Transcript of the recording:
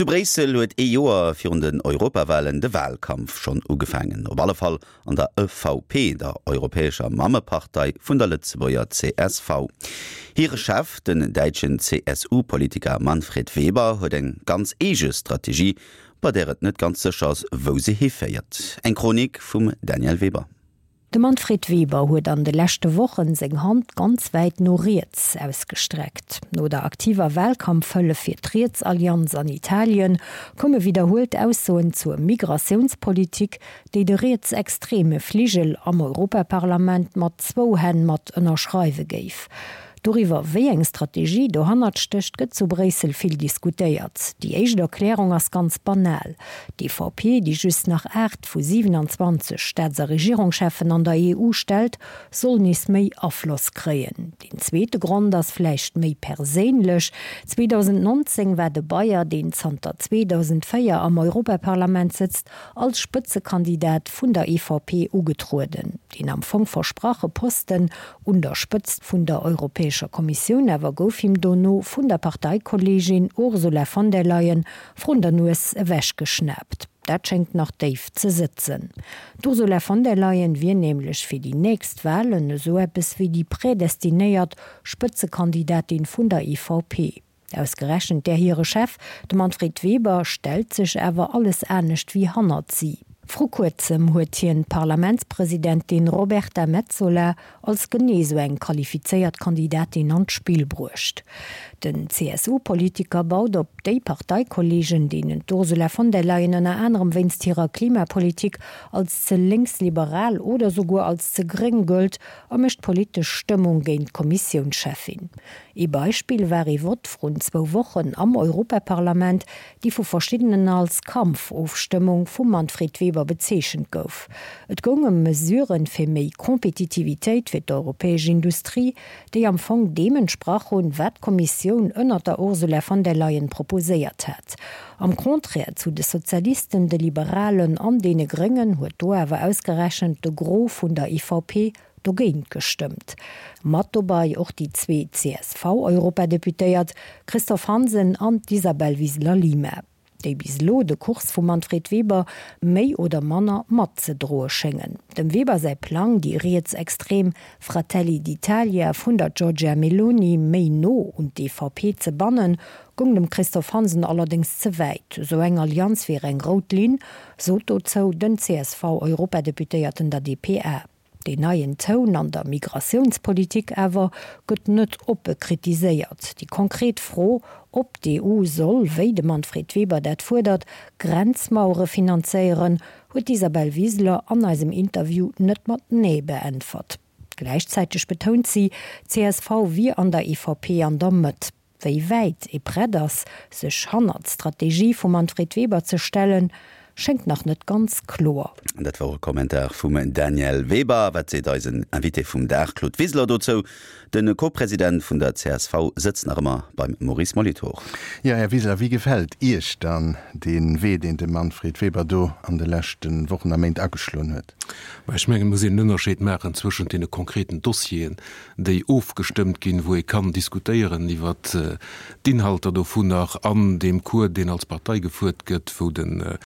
Zu Bréissel huet ee Joer virun den Europawalen de Walkampf schonn ugefaangen. Op alle Fall an der EVP, der europäescher Mammepartei vun der Lëtzebuerger csv. Hire Chef, den däitschen CSU-Politiker Manfred Weber, huet eng ganz eege Strategie, bei där et net ganz sécher ass, wou se hiféiert. Eng Chronik vum Danièle Weber. De Manfred Weber huet an de leschte Wochen seng Hand ganz wäit no riets ausgestreckt. No der aktiver Wahlkampfhëllef fir d'Rietsallianz an Italien koume widderhuelt Aussoen zur Migratiounspolitik, déi de rietsextreme Fligel am Europaparlament mat zwou Hänn mat ënnerschreiwe géif. Doriwwer, wéi eng Strategie dohannert stécht, gëtt zu Bréissel vill diskutéiert. Déi éischt Erklärung ass ganz banal, D'EVP, déi just nach 8 vu 27 Staats a Regierungscheffen an der EU stellt, soll nees méi Afloss kréien. Deen zweete Grond ass vläicht méi perséinlech, 2019 war de Bayer, deen zanter 2004 am Europaparlament sëtzt, als Spëtzekandidat vun der EVP ugetrueden. Deen am Fong versprache Posten Un der Spëtzt vun der Europäescher Kommissioun awer gouf him dono vun der Parteikolleegin Ursula von der Leyen vrun der Nues ewechgeschnaapt. Dat schéngt nach déif ze sëtzen. D'Ursula von der Leyen wier nämlech fir déi nächst Walen esou eppes wéi déi prädestinéiert Spëtzekandidatin vun der EVP. Ausgerechent där hire Chef, de Manfred Weber, stellt sech awer alles anescht wéi hannert si. Vru kuerzem huet hien d'Parlamentspresidentin Roberta Metsola als genee sou eng qualifizéiert Kandidatin an d'Spill bruecht. Den CSU-Politiker baut op déi Parteikolleegen, deenen d'Ursula von der Leyen ënner anerem wéinst hirer Klimapolitik als ze lénksliberal oder souguer als ze gréng gëllt, a mécht politesch Stëmmung géint d'Kommissiounscheffin. Ee Beispill war ee Vott vrun zwou Wochen am Europaparlament, déi vu verschiddenen als Kampfofstëmmung vum Manfred Weber bezeechent gouf. Et goung ëm Mesuren fir méi Kompetitivitéit fir d'europäesch Industrie, déi am Fong deem entsprach hunn, wat d'Kommissioun ënnert der Ursula von der Leyen proposéiert hat. Am Contraire zu de Sozialisten, de Liberalen an deene Gréngen huet do awer ausgerechent de Gros vun der EVP dogéint gestëmmt. Mat dobei och déi zwee CSV-Europadeputéiert Christophe Hansen an d'Isabel Wiseler-Lima, déi bis elo de Kurs vum Manfred Weber méi oder manner matzedroe schéngen. Dem Weber säi Plang, déi rietsextrem Fratelli d'Italia vun der Giorgia Meloni méi no un d'EVP ze bannen, goung dem Christophe Hansen allerdéngs ze wäit. Esou eng Allianz wier eng rout Linn, sot dozou den CSV-Europadeputéierten der dpa. Deen neien Toun an der Migratiounspolitik awer gëtt net oppe kritiséiert. Déi konkret Fro, ob d'EU soll, wéi de Manfred Weber dat fuerdert, Grenzmauere finanzéieren, huet d'Isabel Wiseler an eisem Interview net mat Nee beäntwert. Gläichzäiteg betount si, csv wier an der EVP an der Mëtt. Wéi wäit ee prett ass, sech hannert d'Strategie vum Manfred Weber ze stellen, schéngt nach net ganz kloer. Dat wor e Kommentar vum Danièle Weber. Wat seet eisen Invité vum Dag, Claude Wiseler, dozou? De Co-President vun der csv sëtzt nach ëmmer beim Maurice Molitor. Jo, Här Wiseler, wéi gefält Iech dann dee Wee, deen de Manfred Weber do an de leschte Wochen a Méint ageschloen huet? Mä ech mengen, et muss een en Ënnerscheed maachen zwëschent deene konkreten Dossieren, déi ofgestëmmt ginn, wou ee kann diskutéieren iwwert d'Inhalter dovunner, an deem Cours, deen als Partei gefuert gëtt, wou de.